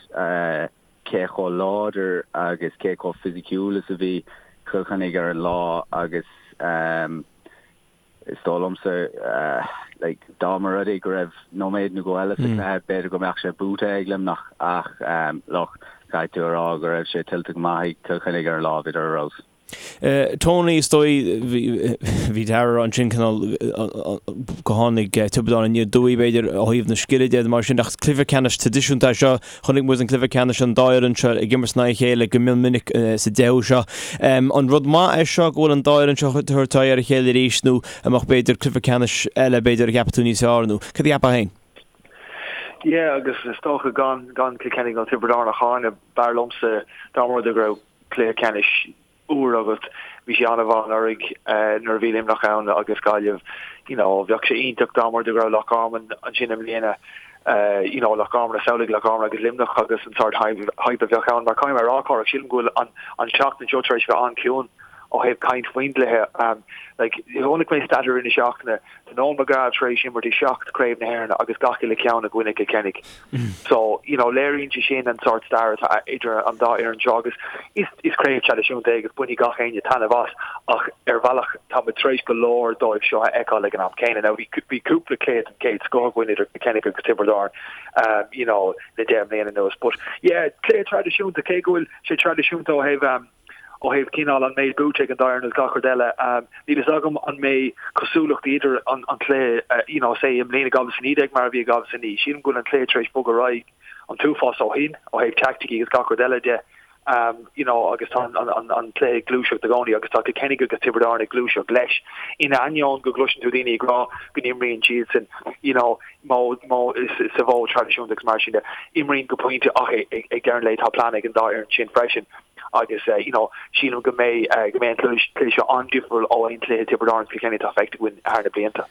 cé chomh láidir agus cé chomh fisiciúil is a bhí Cill Chainnigh ar an lá agus, Is dóigh liomsa, like, dá mba rud é go raibh nóiméad nó dhó eile sa chluiche, b'fhéidir go mbeadh sé buaite ag Luimneach ach, look, caithfidh tú a rá go raibh sé tuillte go maith ag Cill Chainnigh ar an lá, bhíodar ar fheabhas. Tony, is dóigh, bhí Dara ansin cineál go tháinig Tiobraid Árann aniar aduaidh b'fhéidir ó thaobh na scile de mar sin ach cluiche ceannais traidisiúnta é seo. Chonaic muid an cluiche ceannais an dá fhoireann seo ag imirt in aghaidh a chéile go mion minic sa deichiú seo. An rud maith é seo go bhfuil an dá fhoireann seo ag tabhairt aghaidh ar a chéile arís nó an mbeadh b'fhéidir cluiche ceannais eile b'fhéidir a cheapfadh tú níos fearr nó cad a cheapfá féin? Yeah agus is dócha gan gan Cill Chainnigh nó Tiobraid Árann a cháineadh b'fhearr liomsa dá mba rud é go raibh cluiche ceannais úr agat. Bhí sé an-mhaith anuraidh nuair a bhí Luimneach ann agus Gaillimh. You know, bheadh sé iontach dá mba rud é go raibh Loch Garman ansin i mbliana. You know, Loch Garman, samhlaigh Loch Garman agus Luimneach agus an sórt hype a bheadh ann. Mar caithfidh mé a rá, Cárthach, sílim go bhfuil an an tseachtain seo tar éis bheith an-chiúin ó thaobh caint faoin gcluiche. Like, chonaic mé stat i rith na seachtaine, tá Noel McGrath tar éis imirt i seacht Craobh na hÉireann agus gach uile ceann i gcoinne Cill Chainnigh. So, you know, léiríonn sé sin an sórt stair atá idir an dá fhoireann seo agus is, is craobh traidisiúnta é agus bainfidh gach éinne taitneamh as ach ar bhealach tá muid tar éis go leor dóibh seo a fheiceáil ag an am céanna. Now, bhí, bhí cúpla cluiche den chéad scoth againn idir Cill Chainnigh agus Tiobraid Árann, um, you know, le 10 mbliana anuas. But, yeah, cluiche traidisiúnta, cé go bhfuil sé traidisiúnta ó thaobh, um, ó thaobh cineál an méid buaite ag an dá fhoireann agus gach rud eile. Níl fhios agam an mbeidh cosúlachtaí idir an cluiche, you know, say i mbliana 2019 mar a bhí i 2009. Sílim go bhfuil an cluiche tar éis bogadh ar aghaidh an t-uafás ó shin, ó thaobh teaicticí agus gach rud eile de, you know, agus tá an cluiche ag gluaiseacht i gcónaí agus tá Cill Chainnigh agus Tiobraid Árann ag gluaiseacht leis. In ainneoin go gcloiseann tú daoine ag rá go n-imríonn siadsan, you know, modh, sa mhodh traidisiúnta agus mar sin de. Imríonn go pointe ach ag deireadh an lae tá plean ag an dá fhoireann sin freisin agus you know sílim go mbeidh go mbeidh an cluiche seo an-difriúil ó aon chluiche Tiobraid Árann Cill Chainnigh atá feicthe againn thar na blianta.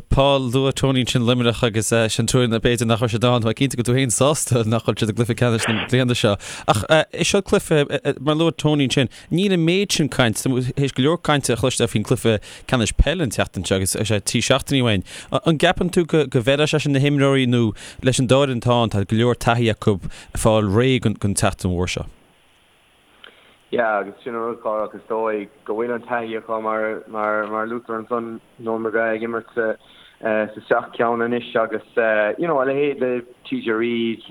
Paul, luaigh Tony ansin Luimneach agus sin tuairim b'fhéidir nach raibh siad ann. Tá cinnte go bhfuil tú féin sásta nach bhfuil siad i gcluiche ceannais na bliana seo. Ach is seo cluiche, mar a luaigh Tony ansin, Níl an méid sin cainte, théis go leor cainte a chloisteáil faoin gcluiche ceannais peile an tseachtain seo agus sé 3 seachtainí uainn. An gceapann tú go bhfeilfeadh sé sin na himreoirí nó leis an dá fhoireann atá ann, tá go leor taithí acu fáil réidh don tseachtain mhór seo? Yeah, agus sin an rud, Cárthach, is dóigh go bhfuil an taithí acu mar mar mar luaitear ansan Noel McGrath ag imirt sa sa seacht ceann anois agus you know a leithéid de TJ Reid,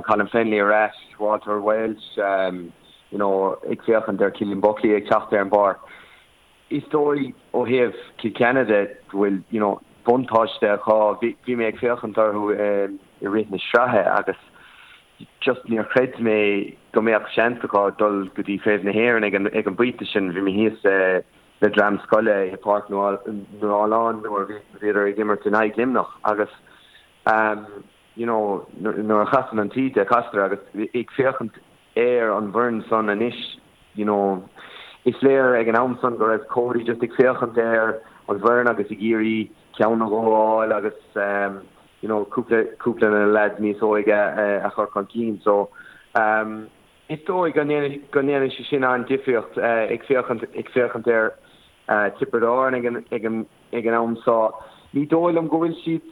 Colin Fennelly ar ais, Walter Walsh, you know, ag féachaint ar Cillian Buckley ag teacht ar an bpáirc, is dóigh ó thaobh Cill Chainnigh de go bhfuil, you know, buntáiste acu. Bhí, bhí mé ag féachaint orthu i rith na sraithe agus just níor chreid mé go mbeadh seans acu dul go dtí Craobh na hÉireann ag an, ag an bpointe sin. Bhí mé thíos le dream scoile i Páirc Nualláin nuair a bhíodar ag imirt in aghaidh Luimneach agus you know, nuair a chasann an taoide, castar agus ag féachaint ar an bhfoireann san anois, you know, is léir ag an am san go raibh Cody just ag féachaint ar an bhfoireann agus ag iarraidh ceann nó dhó a fháil agus um, you know, cúpla, cúpla de na lads níos óige a, a chur chun cinn. So, um, is dóigh go ndéanfaidh, go ndéanfaidh sé sin an-difríocht uh, ag féachaint, ag féachaint ar uh, Tiobraid Árann ag an, ag an, ag an am so. Ní dóigh liom go bhfuil siad,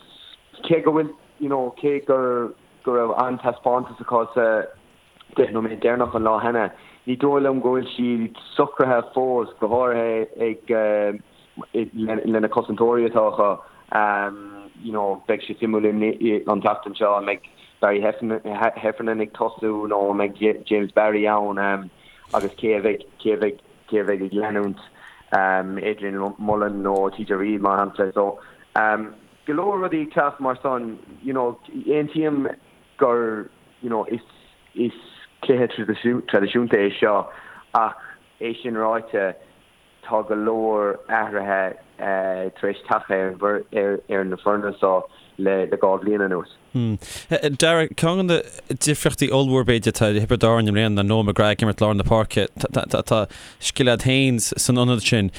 cé go bhfuil, you know, cé gur, go raibh an-taispeántas acu sa 10 nóiméad deireanach an lá cheana, ní dóigh liom go bhfuil siad socraithe fós, go háirithe ag, le na cosantóirí atá acu. You know, beidh sé suimiúil an tseachtain seo an mbeidh Barry Heffernan ag tosú nó an mbeidh James Barry ann agus cé a bheidh, cé a bheidh, cé a bheidh ag leanúint Adrian Mullen nó TJ Reid mar shampla. So, go leor rudaí ag teacht mar san, you know, aontaím gur, you know, is, is cluiche traidisiúnta é seo ach é sin ráite, tá go leor athruithe tar éis teacht ar ar na foirne seo le 2 bhliain anuas. Darragh, ceann de na difríochtaí ollmhór b'fhéidir atá i Thiobraid Árann i mbliana ná Noel McGrath ag imirt lár na páirce. Tá scil agat féin san ionad sin.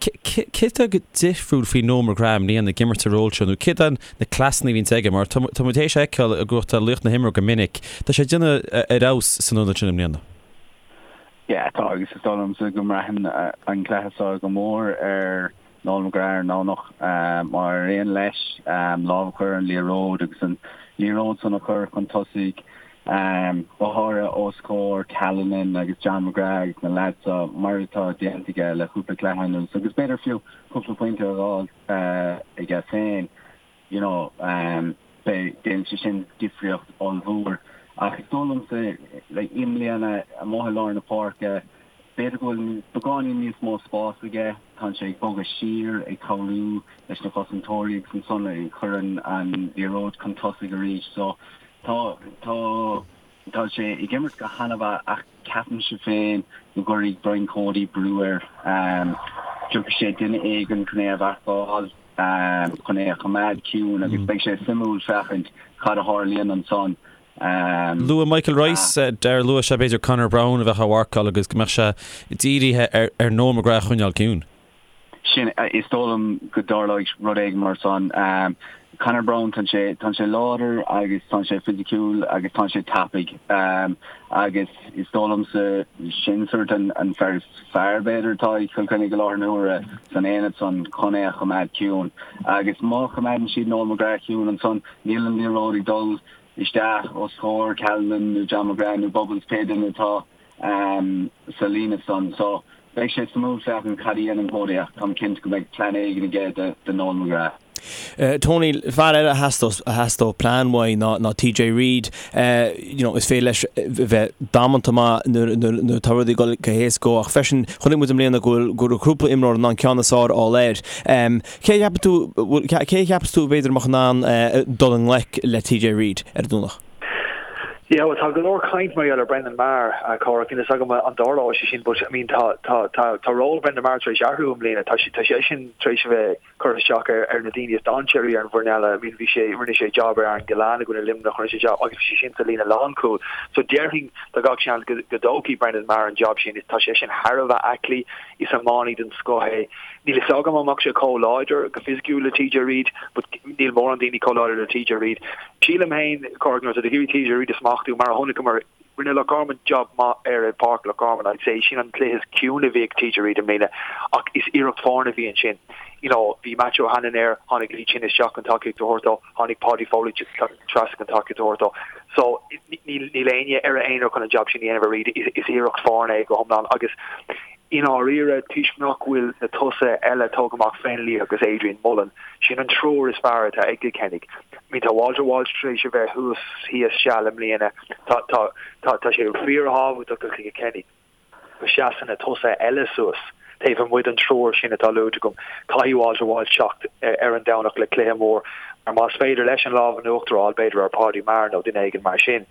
Céard atá difriúil faoi Noel McGrath i mbliana ag imirt sa ról seo nó céard iad na cleasanna a bhíonns aige mar tá muid théis a fheiceáil i gcumhacht laoch na himeartha go minic. Tá sé ag déanamh ar fheabhas san ionad sin i mbliana. Yeah, tá agus is dóigh liomsa go mbraitheann an cluiche seo go mór ar Noel McGrath ar an nDomhnach. Má éiríonn leis lámh a chur ar an liathróid agus an liathróid san a chur chun tosaigh, go háirithe os comhair Callanan agus John McGrath agus na leaids seo, mar atá déanta aige le cúpla cluiche anuas agus b'fhéidir fiú cúpla pointe a fháil aige féin. you know, beidh, déanfaidh sé sin difríocht ollmhór. Ach is dóigh liomsa, like, i mbliana, amuigh i lár na páirce, b'fhéidir go bhfuil beagáinín níos mó spás aige, tá sé ag bogadh siar, ag cabhrú leis na cosantóirí agus ansan ag cur an, an liathróid chun tosaigh arís. So, tá, tá, tá sé ag imirt go han-mhaith ach ceapaimse féin go gcuirfidh Brian Cody brú air. Tiocfaidh sé duine éigin chun é a mharcáil. chun é a choimeád ciúin agus beidh sé suimiúil féachaint cad a tharlaíonn ansan. Luaigh Michael Rice, Darragh, luaigh sé b'fhéidir Conor Browne a bheadh á mharcáil agus go mbeadh sé dírithe ar Noel McGrath a choinneáil ciúin. Sin, is dóigh liom go dtarlóidh rud éigin mar san. Conor Browne, tá sé, tá sé láidir agus tá sé fisiciúil agus tá sé tapaidh agus is dóigh liomsa sin sort an fear is fearr, b'fhéidir, atá ag Cill Chainnigh i láthair na huaire san aonad san chun é a choimeád ciúin. Agus má choimeádann siad Noel McGrath ciúin ansan, níl an liathróid ag dul isteach os comhair Callanan nó John McGrath nó Bubbles, pé duine atá sa líne san. So, beidh sé suimiúil féachaint cad a dhéanann Cody ach táim cinnte go mbeidh plean éigin aige do Noel McGrath. Tony, fear eile a theastódh plean uaidh ná TJ Reid. You know, is féidir leis bheith damanta maith nuair atá rudaí ag dul go héasca dó ach freisin chonaic muid i mbliana go bhfuil go raibh cúpla imreoir in ann ceann is fearr a fháil air. Cé a cheapann tú, cé a cheapas tú b'fhéidir a mbeadh in ann dul i ngleic le TJ Reid ar an Domhnach? Yeah, well tá go leor caint mar gheall ar Brendan Maher, Cárthach, níl a fhios agam an dtarlóidh sé sin but I mean tá tá tá tá ról Brendan Maher tar éis athrú i mbliana, tá sé tá seisean tar éis a bheith curtha isteach ar na daoine is dainséaraí ar an bhfoireann eile. I mean bhí sé, rinne sé jab ar Aaron Gillane i gcoinne Luimneach, rinne sé jab agus bhí sé sin sa líne lánchúil. So déarfainn tá gach seans go go dtógfaidh Brendan Maher an jab sin. Tá sé sin thar a bheith aclaí, is iománaí den scoth é. Níl a fhios agam an mbeadh sé chomh láidir go fisiciúil le TJ Reid but níl mórán daoine chomh láidir le TJ Reid. Sílim féin, Cárthach, nuair atá tú ag iarraidh TJ Reid a smachtú, mar a chonaiceamar Rinne Loch Garman job maith air i bPáirc Loch Garman, I'd say. Sin an cluiche is ciúine a bhí ag TJ Reid i mbliana ach is iarracht foirne a bhí ansin. You know, bhí Matthew O'Hanlon air, tháinig Lee Chin isteach chun tacaíocht a thabhairt dó, tháinig Paudie Foley trasna chun tacaíocht a thabhairt dó. So, níl éinne ar a aonar chun an job sin a dhéanamh ar Reid, is iarracht foirne é go hiomlán agus I ndáiríre, toisc nach bhfuil na tosaithe eile tógtha amach, Fennelly agus Adrian Mullen, sin an triúr is fearr atá ag Cill Chainnigh. I mean, tá Walter Walsh tar éis a bheith thuas thíos seal i mbliana. Tá, tá, tá, tá sé fíorthábhachtach do Chill Chainnigh go seasann na tosaithe eile suas taobh amuigh den triúr sin atá luaite agam. Caithfidh Walter Walsh teacht ar an Domhnach le cluiche mór mar más féidir leis an lámh in uachtar a fháil, b'fhéidir ar Paudie Maher nó duine éigin mar sin,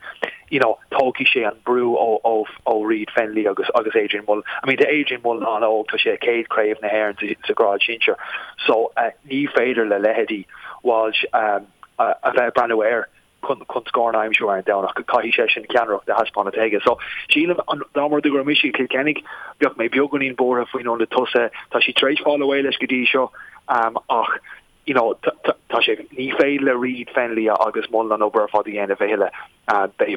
you know, tógfaidh sé an brú ó, ó, ó Reid Fennelly agus, agus Adrian Mullen. I mean, tá Adrian Mullen an-óg, tá sé a chéad chraobh na hÉireann sa, sa ghrád sinsir. So, uh, ní féidir le leithéidí Walsh um, a, a bheith ag breathnú air chun, chun scóranna a aimsiú ar an Domhnach. Caithfidh seisean ceannaireacht a thaispeáint aige. So, sílim, an, dá mba rud é go raibh mise ag Cill Chainnigh, bheadh mé beagáinín buartha faoin ionad tosaithe. Tá siad tar éis fáil away leis go dtí seo, um, ach you know, tá sé, ní féidir le Reid, Fennelly agus Mullen an obair ar fad a dhéanamh a thuilleadh.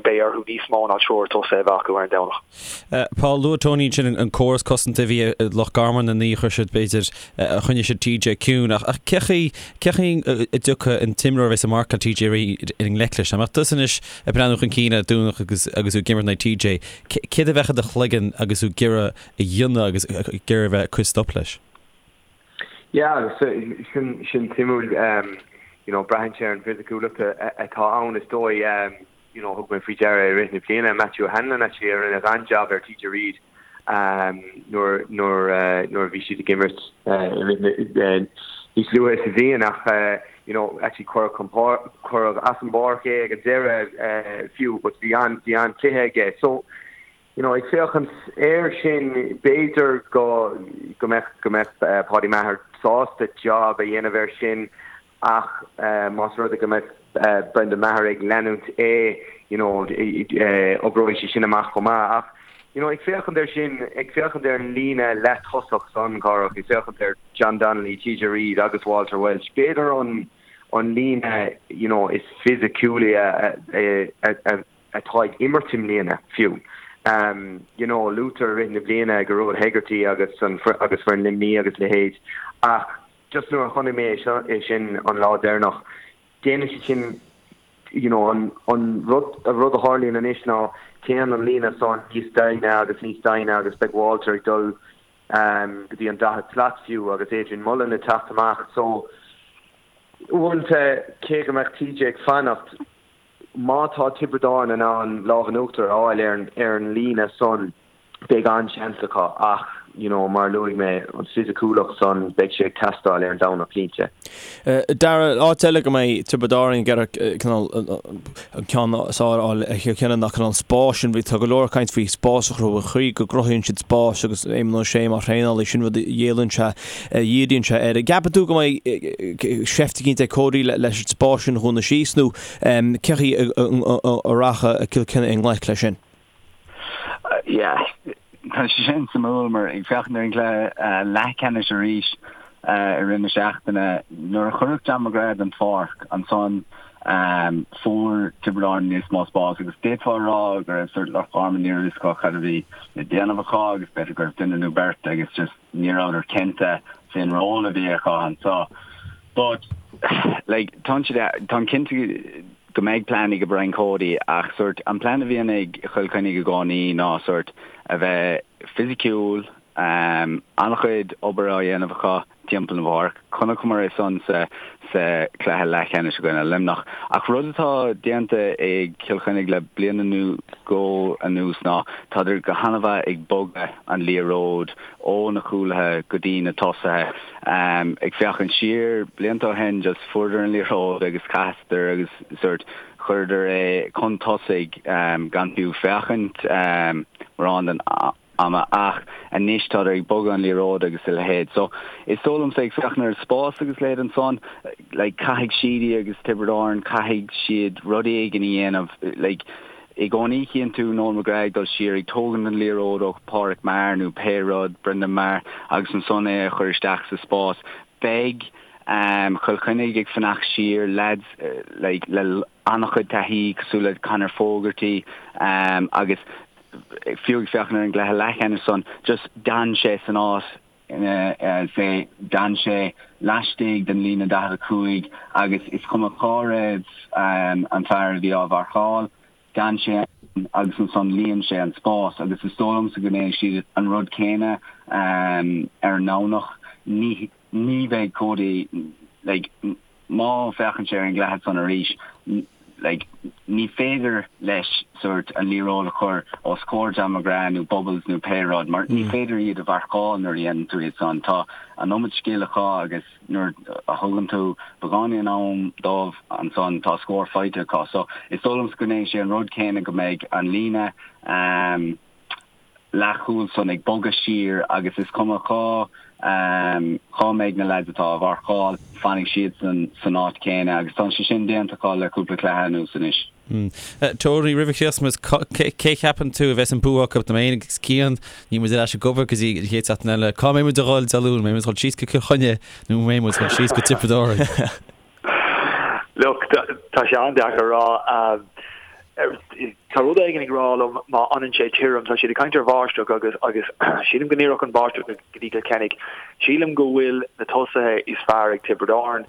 Beidh orthu níos mó ná triúr tosaithe a bheith acu ar an Domhnach. Paul, luaigh Tony ansin an córas cosanta a bhí ag Loch Garman an ní a chuir siad, b'fhéidir, a choinnigh siad TJ ciúin. Ach cé chaoi, cé chaoi a dtiocfadh an t-imreoir a bheas ag marcáil TJ Reid i ngleic leis? Dá mbeadh tusa anois ag breathnú chun cinn ar Domhnach agus agus tú ag imirt in aghaidh TJ, céard a bheadh i do chloigeann agus tú ag iarraidh a dhéanamh agus ag iarraidh a bheith ag cur stop leis? Yeah, agus sin sin suimiúil, you know, braitheann sé ar an bhfisiciúlacht atá ann is dóigh, you know, thug mé faoi deara i rith na bliana Matthew O'Hanlon actually a rinne an-jab ar TJ Reid nuair nuair nuair a bhí siad ag imirt i rith na níos luaithe sa bhliain ach you know, actually cuireadh chun cuireadh as an bpáirc é ag an deireadh fiú but bhí an bhí an-chluiche aige. So. you know, ag féachaint air sin, b'fhéidir go go mbeadh go mbeadh Paddy Maher sásta job a dhéanamh air sin ach más rud é go mbeadh Brendan Maher ag leanúint é, you know, oibreoidh sé sin amach chomh maith. Ach, you know, ag féachaint air sin, ag féachaint ar an líne leath-tosach san, Cárthach, ag féachaint ar John Donnelly, TJ Reid agus Walter Walsh, b'fhéidir an an líne, you know, is fisiciúla a a atá ag imirt i mbliana fiú. You know, luaitear i rith na bliana Gearóid Hegarty agus an agus foireann Luimní agus leithéid ach just nuair a chonaic mé é seo é sin an lá deireanach, déanann siad sin you know an an rud an rud a tharlaíonn anois ná téann an líne san níos doimhne agus níos doimhne agus beidh Walter ag dul go dtí an 40 slat fiú agus Adrian Mullen ag teacht amach so uaireanta cé go mbeadh TJ ag fanacht Má tá Tiobraid Árann in ann lámh in uachtar a fháil ar an líne san, beidh an-seans acu ach, you know, mar a luaigh mé, an fisiciúlacht san, beidh sé ag teastáil ar an Domhnach cinnte. Dara, áit eile go mbeidh Tiobraid Árann ag iarraidh cineál an ceann is fearr a fháil ar Chill Chainnigh ná cineál spáis sin. Tá go leor caint faoi spás a chruthú, an chaoi go gcruthaíonn siad spás agus Éamonn Ó Sé mar thraenálaí, sin rud a dhíríonn sé a dhíríonn sé air. An gceapann tú go mbeidh seift eicínt ag Cody leis an spás sin a dhúnadh síos nó cén chaoi a rachaidh Cill Chainnigh i ngleic leis sin? Yeah, tá sé sin suimiúil mar ag féachaint ar an gcluiche leathcheannais arís i rith na seachtaine, nuair a cuireadh John McGrath den pháirc ansan fuair Tiobraid Árann níos mó spás agus d'fhéadfá a rá go raibh sort Loch Garman ní raibh fhios acu cad a bhí le déanamh acu agus b'fhéidir go raibh duine nó beirt agus just ní rabhadar cinnte fén ról a bhí acu anso. But, like, tá siad, táim cinnte go mbeidh plean ag Brian Cody ach sort an plean a bhíonn ag Chill Chainnigh i gcónaí ná sort a bheith fisiciúil, um, an-chuid obair á dhéanamh acu timpeall na bpáirc. Chonaiceamar é san sa sa chluiche leathcheannais i gcoinne Luimneach. Ach rud atá déanta ag Cill Chainnigh le bliain nó dhó anuas ná tádar go han-mhaith ag bogadh an liathróid ó na cúlaithe go dtí na tosaithe. Ag féachaint siar blianta ó shin just fuaireadar an liathróid agus chaitheadar agus sort chuireadar é chun tosaigh gan fiú féachaint mórán den ama ach anois tádar ag bogadh an liathróid agus a leithéid. So is dóigh liomsa ag féachaint ar an spás agus a leithéid ansan like caithfidh Sheedy agus Tiobraid Árann caithfidh siad rud éigin a dhéanamh like i gcónaí chíonn tú Noel McGrath ag dul siar ag tógaint an liathróid ó Phádraic Maher nó pé rud, Brendan Maher agus ansan é a chur isteach sa spás. Beidh um Chill Chainnigh ag fanacht siar, lads like le an-chuid taithí cosúil le Conor Fogarty um agus fiú ag féachaint ar an gcluiche leathcheannais san, just d'fhan sé san áit ina say, d'fhan sé laistigh den líne 45 agus is cuma cá raibh an fear a bhí á mharcáil, d'fhan sé ann agus ansan líon sé an spás agus is dóigh liomsa go ndéanfaidh siad an rud céanna ar an nDomhnach. Ní Ní bheidh Cody, like, má féachann sé ar an gcluiche san arís, like, ní féidir leis sort an liathróid a chur os comhair John McGrath nó Bubbles nó pé rud mar ní féidir iad a mharcáil nuair a dhéanann tú iad san. Tá an iomad scil acu agus nuair a thugann tú beagáinín am dóibh ansan tá scór faighte acu. So is dóigh liomsa go ndéanfaidh sé an rud céanna go mbeidh an líne um, leathchúil san ag bogadh siar agus is cuma cá cá mbeidh na leaids atá á mharcáil, fanfaidh siadsan san áit chéanna agus tá sé sin déanta acu le cúpla cluiche anuas anois. Tony, roimh a chríochnóimid, cé cheapann tú a bheas an bua acu? Tá mé féin agus Cian, níl muid ar ais ag obair go dtí an chéad seachtain eile. Cá mbeidh muid a dhul Dé Luain? Mbeidh muid ag dul síos go Cill Chainnigh nó mbeidh muid ag dul síos go Tiobraid Árann? Look, tá sé an-deacair a rá. Tá rud éigin ag rá liom má fhanann sé tirim, tá siad ag caint ar bháisteach agus agus sílim go n-oirfeadh an bháisteach go dtí Cill Chainnigh. Sílim go bhfuil na tosaithe is fearr ag Tiobraid Árann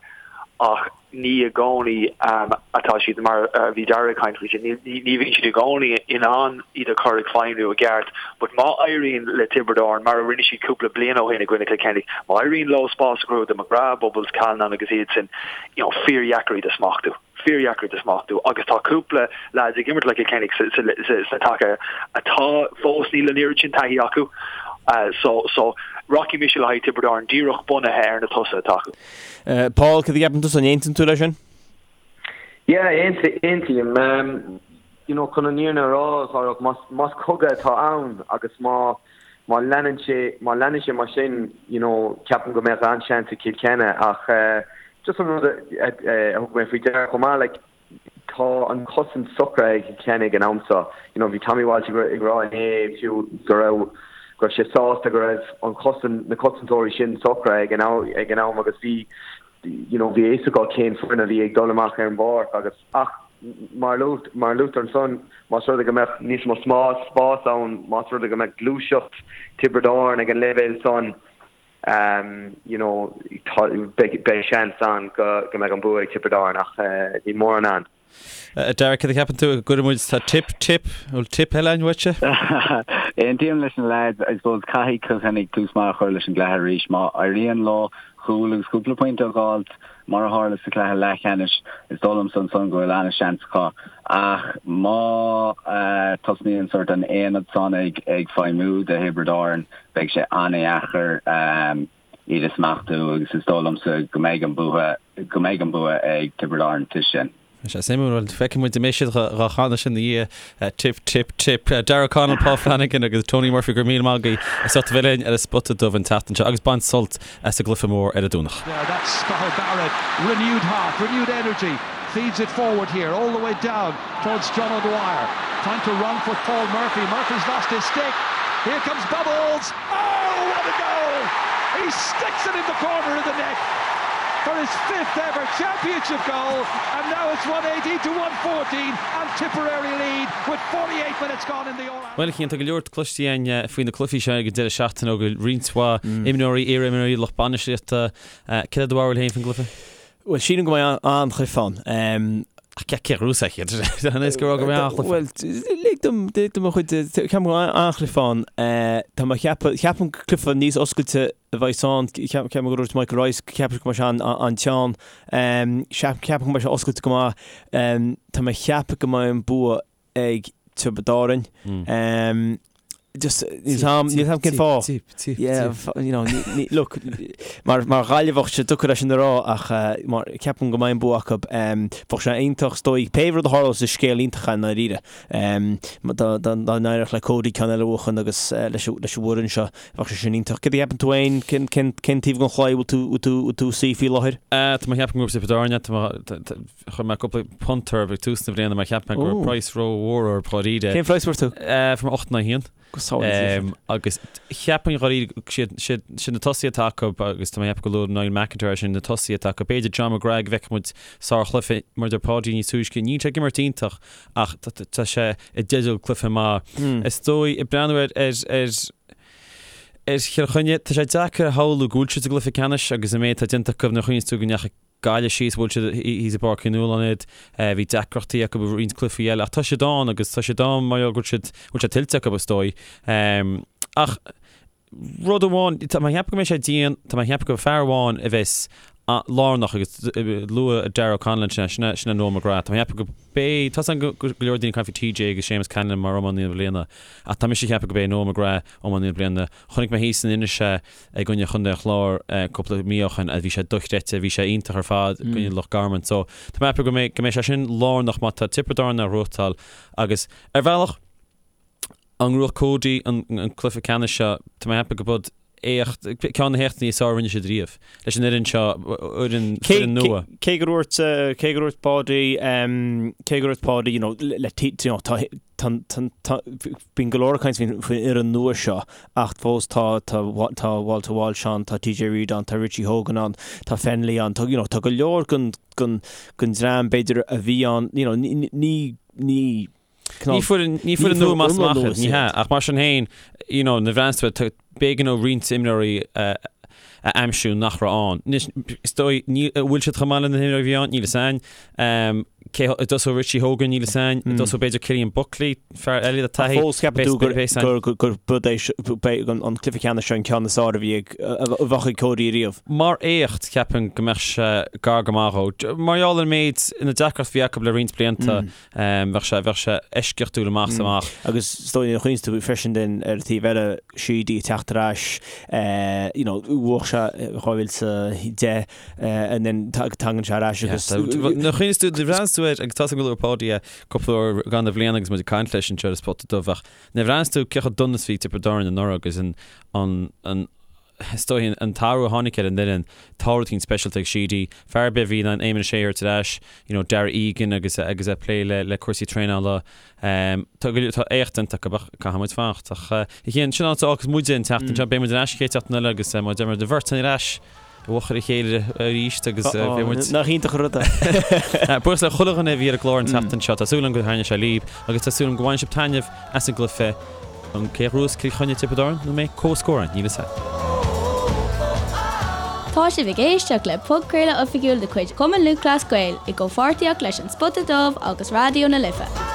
ach ní i gcónaí atá siad mar a bhí Dara ag caint faoi sin, ní bhíonn siad i gcónaí in ann iad a chur ag feidhmiú i gceart. But má éiríonn le Tiobraid Árann, mar a rinne siad cúpla bliain ó shin i gcoinne Cill Chainnigh, má éiríonn leo spás a chruthú do McGrath, Bubbles, Callanan agus iad sin, you know, fíordheacair iad a smachtú. Fíordheacair iad a smachtú. Agus tá cúpla lads ag imirt le Cill Chainnigh sna taca atá fós níl an oiread sin taithí acu. So, so, rachaidh mise le haghaidh Tiobraid Árann díreach bunaithe ar na tosaithe atá acu. Paul, cad a cheapann tusa, an aontaíonn tú leis sin? Yeah, aontaím. you know, chun an fhírinne a rá, a Chárthach, más, más cogadh atá ann agus má, má leanann sé, má leanann sé mar sin, you know, ceapaim go mbeadh an-seans ag Cill Chainnigh ach eh, just an rud a, a, a thug mé faoi deara chomh maith, like, tá an chosaint socraithe ag Cill Chainnigh ag an am seo. You know, bhí Tommy Walsh ag, ag rá inné fiú go raibh, go raibh sé sásta go raibh an chosaint, na cosantóirí sin socraithe ag an am, ag an am agus bhí, you know, bhí a fhios acu cén foireann a bhí ag dul amach ar an bpáirc agus, ach mar a luaigh, mar a luaitear ansan, más rud é go mbeadh níos mó smás, spás ann, más rud é go mbeadh gluaiseacht Tiobraid Árann ag an leibhéal san, you know, tá, beidh, beidh seans ann go, go mbeadh an bua ag Tiobraid Árann ach níl mórán ann. A Dara, céard a cheapann tú? An gcuireann muid, tá tip, tip, bhfuil tip eile againn uaitse? Aontaím leis na leaids, I suppose caithfidh Cill Chainnigh tús maith a chur leis an gcluiche arís. Má éiríonn leo cúl agus cúpla pointe a dh'fháilt, mar a tharla sa chluiche leathcheannais, is dóigh liomsa ansan go bhfuil an-seans acu. Ach má tosnaíonn sort an aonad san ag feidhmiú do Thiobraid Árann, beidh sé an-dheacair iad a smachtú agus is dóigh liomsa go mbeidh an bua go mbeidh an bua ag Tiobraid Árann toisc sin. Tá sé suimiúil, bhuel feicfidh muid an mbeidh siad dhá chanadh sin ina dhiaidh, tip, tip, tip. Darragh O'Connell, Paul Flanagan agus Tony Murphy, go raibh míle maith agaibh as ucht a bheith linn ar an Spota Dubh an tseachtain seo agus bain sult as an gcluiche mór ar an Domhnach. There, that's Cathal Barrett, renewed heart, renewed energy, feeds it forward here, all the way down towards John O'Dwyer, trying to run for Paul Murphy, Murphy's lost his stick, here comes Bubbles! Oh, what a goal! He sticks it in the corner of the net for his fifth ever championship goal and now it's 1-18 to 1-14 and Tipperary lead with 48 minutes gone in the All Bhuel, a Chian, tá go leor cloiste againn faoi na cluichí seo ag an deireadh seachtaine ó roinnt mhaith imreoirí, iar-imreoirí, lucht bainistíochta. Céard é do bharúil féin faoin gcluiche? Bhuel, sílim go mbeidh an-chluiche ann. Ach cé a ghnóthós iad? An é go raibh go mbeidh an-chluiche ann? Bhuel, lig dom, lig dom mo chuid, ceapaim go mbeidh an-chluiche ann. Tá mé ag ceapadh, ceapaim gur cluiche níos oscailte a bheidh ann. Ceapaim gur dúirt Michael Rice go ceapann sé go mbeidh sé an-teann. Ceapaim go mbeidh sé oscailte go maith. Tá mé ag ceapadh go mbeidh an bua ag Tiobraid Árann. Just, níl 'am, níl 'am cén fáth. Tip, tip, Yeah, tip. you know, ní, ní, look, mar, mar Ghaillimheach sé deacair é sin a rá ach eh, mar, ceapaim go mbeidh an bua acu. Um, bheadh sé iontach is dóigh, pé rud a tharlós is scéal iontach é i ndáiríre. Um, dá, dá, dá n-éireodh le Cody ceann eile a bhuachan agus eh, leis, an- leis an bhfoireann seo, bheadh sé sin iontach. Céard a cheapann tú féin? Cén, cén, cén taobh den chlaí bhfuil tú, bhfuil tú, bhfuil tú ag suí faoi láthair? Eh, tá mé ag ceapadh go bhfuil Tiobraid Árann, tá mé, tá, tá, Chuir mé cúpla punt orthu ag tús na bliana mar cheap mé go raibh praghas rómhór orthu dháiríre. Cén praghas a fuair tú? Fuair mé 8 in aghaidh 1. Go sábháilte. Agus cheapfainn dháiríre siad sin na tosaithe atá acu agus tá mé ag ceapadh go luaigh Niall McIntyre é sin na tosaithe atá acu. B'fhéidir John McGrath go bhfeicfidh muid sárchluiche mar a deir Páidí níos túisce. Níl sé ag imirt iontach ach tá sé i dteideal cluiche maith. Is dóigh ag breathnú ar ar ar Chill Chainnigh, tá sé deacair a shamhlú go bhfuil siad sa gcluiche ceannais agus an méid atá déanta acu nuair a chuimhníonns tú go ndeachaigh Gaillimh síos, bhuail siad thíos i bPáirc Uí Nualláin iad, bhí deacrachtaí acu i roinnt cluichí eile ach tá siad ann agus tá siad ann mar gheall go bhfuil siad, bhfuil sé tuillte acu is dóigh. Ach rud amháin, tá mé ag ceapadh go mbeidh sé dian, tá mé ag ceapadh go fear amháin a bheas lárnach agus luaigh Darragh O'Connell ansin é, sin é, sin é Noel McGrath. Tá mé ag ceapadh go beidh, tá a fhios agam go leor daoine ag caint faoi TJ agus Séamus Callanan mar iománaí na bliana ach tá mise ag ceapadh go beidh Noel McGrath iománaí na bliana. Chonaic mé thíos in Inis é i gcoinne Chontae an Chláir cúpla mí ó shin agus bhí sé dochreidte, bhí sé iontach ar fad i gcoinne Loch Garman. So tá mé ag ceapadh go mbeidh go mbeidh sé sin lárnach má tá Tiobraid Árann á ghnóthachtáil agus ar bhealach an ngnóthódh Cody an an cluiche ceannais seo, tá mé ag ceapadh go b'd éacht ceann de na héachtaí is fearr a rinne siad riamh leis an fhoireann seo, fhoireann Cé foireann nua. cé gur dúirt cé gur dúirt Páidí cé gur dúirt Páidí you know le you know tá tá tá Bíonn go leor ag caint faoin fhoireann nua seo ach fós tá tá tá Walter Walsh ann, tá TJ Reid ann, tá Richie Hogan ann, tá Fennelly ann, tá you know tá go leor den den den dream b'fhéidir a bhí ann you know ní ní ní Ní foireann ní foireann nua amach is amach iad, ní hea, ach mar sin féin you know nuair a bhreathnaíonns tú air b'éigean dó roinnt imreoirí a a aimsiú nach raibh ann. Anois is dóigh ní an bhfuil siad chomh maith le na himreoirí a bhí ann, níl a fhios a'inn. Cé an dtosóidh Richie Hogan, níl a fhios a'inn. An dtosóidh b'fhéidir Cillian Buckley, fear eile le taithí. Fós ceapann tú gur gur gur b'd é beidh an an cluiche ceannais seo an ceann is fearr a bhí ag a bheadh ag Cody riamh. Mar éacht ceapaim go mbeadh sé gar go maith dhó. Mar gheall ar an méid na deacrachtaí a bhí acu le roinnt blianta bheadh sé bheadh sé eisceachtúil amach is amach. Agus is dóigh nuair a chuimhníonns tú freisin den ar an taobh eile Sheedy ag teacht ar ais you know bhuaigh sé 2010 and then tagann sé ar ais agus. Nuair a chuimhníonns tú, nuair a bhreathnaíonns tú ar. uair, agus tá a fhios agam gur luaigh Páidí é cúpla uair i gcaitheamh na bliana agus muid ag caint leis anseo ar an Spota Dubh ach nuair a bhreathnaíos tú cé chomh dona is bhí Tiobraid Árann anuraidh agus an, an, an, is dóigh an t-athrú a tháinig ar an bhfoireann, tá rud éicint speisialta ag Sheedy, fear ar bith a bhí in ann Éamon Ó Sé a thabhairt ar ais, you know, Darragh Egan agus agus é ag plé le le cúrsaí traenála. Tá go tá éacht déanta acu ach caithfidh muid fanacht. Ach a Chian, sin áit a fhágfas muide an tseachtain seo, beidh muid ar ais an chéad seachtain eile agus mar a deir muid an bheirt ar ais i bhfochair a chéile arís agus beidh muid. Nach iontach an rud é. Buíochas le chuile dhuine a bhí ar an gclár an tseachtain seo. Tá súil agam gur thaitnigh sé libh agus tá súil agam go bhfaigheann sibh taitneamh as an gcluiche. An cé a ghnóthós Cill Chainnigh Tiobraid Árann nó an mbeidh comhscór ann? Níl fhios a'm. Tá sibh ag éisteacht le podchraoladh oifigiúil de chuid Chumann Lúthchleas Gael i gcomhpháirtíocht leis An Spota Dubh agus Raidió na Life.